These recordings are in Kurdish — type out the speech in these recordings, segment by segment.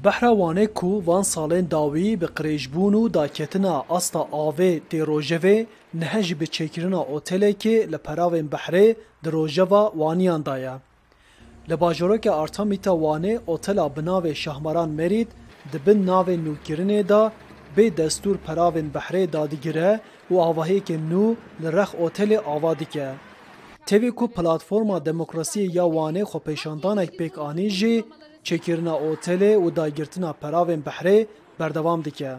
Behra Wanê ku van salên dawî bi qirêjbûn û daketina asta avê tê rojevê, nihe jî bi çêkirina otelekê li peravên behrê di rojeva Waniyan de ye. Li bajarokê Artemîta Wanê otela bi navê Şahmaran Merîd di bin navê nûkirinê de bê destûr peravên behrê dadigire û avahiyeke nû li rex otelê ava dike. Tevî ku Platforma Demokrasiyê ya Wanê xwepêşandanek pêk anî jî, çêkirina otelê û dagirtina peravên behrê berdewam dike.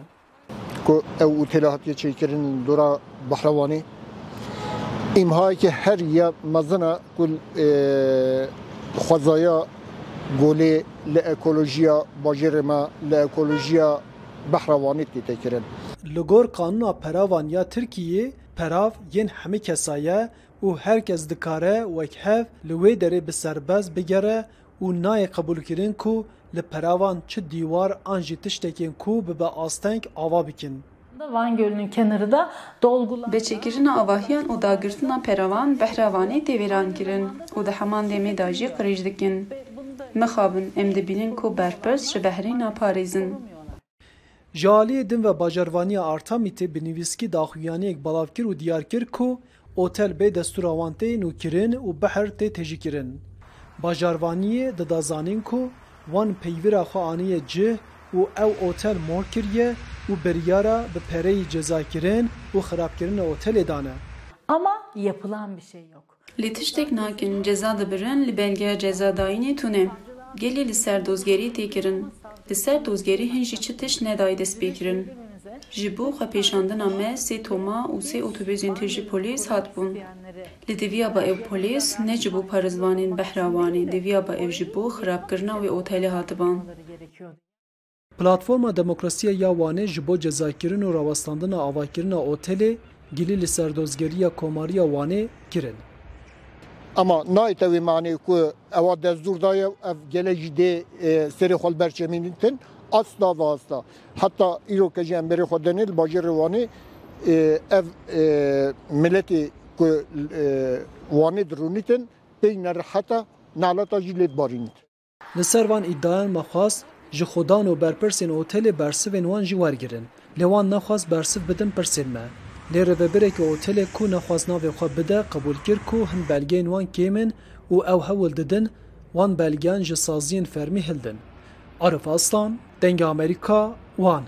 Ku ew otela hatiye çêkirin li dora Behra Wanê, îmhayeke herî ya mezin e ku xwezaya golê li ekolojiya bajêrê me, li ekolojiya Behra Wanê tê kirin. Li gor qanûna peravan ya Tirkiyeyê, perav yên hemî kesa ye û her kes dikare wek hev li wê derê bi serbest bigere û nayê qebûlkirin ku li peravan çi dîwar an jî tiştekên ku bibe asteng ava bikin. Van Gölü'nün kenarı da dolgular. Bi çêkirina avahiyan û dagirtina peravan behra Vanê tê wêrankirin û di heman demê de jî qirêj dikin. Mixabin em dibînin ku berpirs ji behrê naparêzin. Ji aliyê din ve bajarvaniya Artemîtê bi nivîskî daxuyaniyek belav kir û diyar kir ku otel bê destûra wan tê nûkirin û behr tê tejîkirin. Bajarvaniyê dida zanîn ku wan peyvira xwe aniye cih û ew otel mor kiriye û biryara bi pereyî cezakirin û xirabkirina otelê dane. Ama yapılan bir şey yok. Lê tiştek nakin, ceza dibirin, li belgeya cezadayînê tune. Gelê li ser dozgerî tê kirin. Li ser dozgerî hin jî çi tişt nedayî destpêkirin. Ji bo xwepêşandina me sê toma û sê otobûsên tijî polîs hatibûn. Li diviyaba ew polîs ne ji bo parêzvanên Behra Wanê, diviyaba ew ji bo xirabkirina wê otelê hatiban. Platforma Demokrasiyê ya Wanê ji bo cezakirin û rawestandina avakirina otelê gilî li Serdozgeriya Komariya Wanê kirin. Ema nayê te wê manê ku ewa destûr daye û ev gelek jî dê serê xwe li ber çemînitin. Asla ve asla. Heta îro ke jî em berê xwe denê li bajarê Wanê ev miletê ku Wanê dirûnîtin pey nerihet e, naleta jî lê dibarînit. Li ser van îdiayan me xwest ji xwedan û berpirsên otelê bersivên wan jî wergirin. Lê wan nexwest bersiv bidin pirsên me. Lê rêvebirekî otelê ku nexwest navê xwe bide qebûl kir ku hin belgeyên wan kêm in û ew hewl didin wan belgeyan ji saziyên fermî hildin. Arif Aslan, Dengê Amerîka, Wan.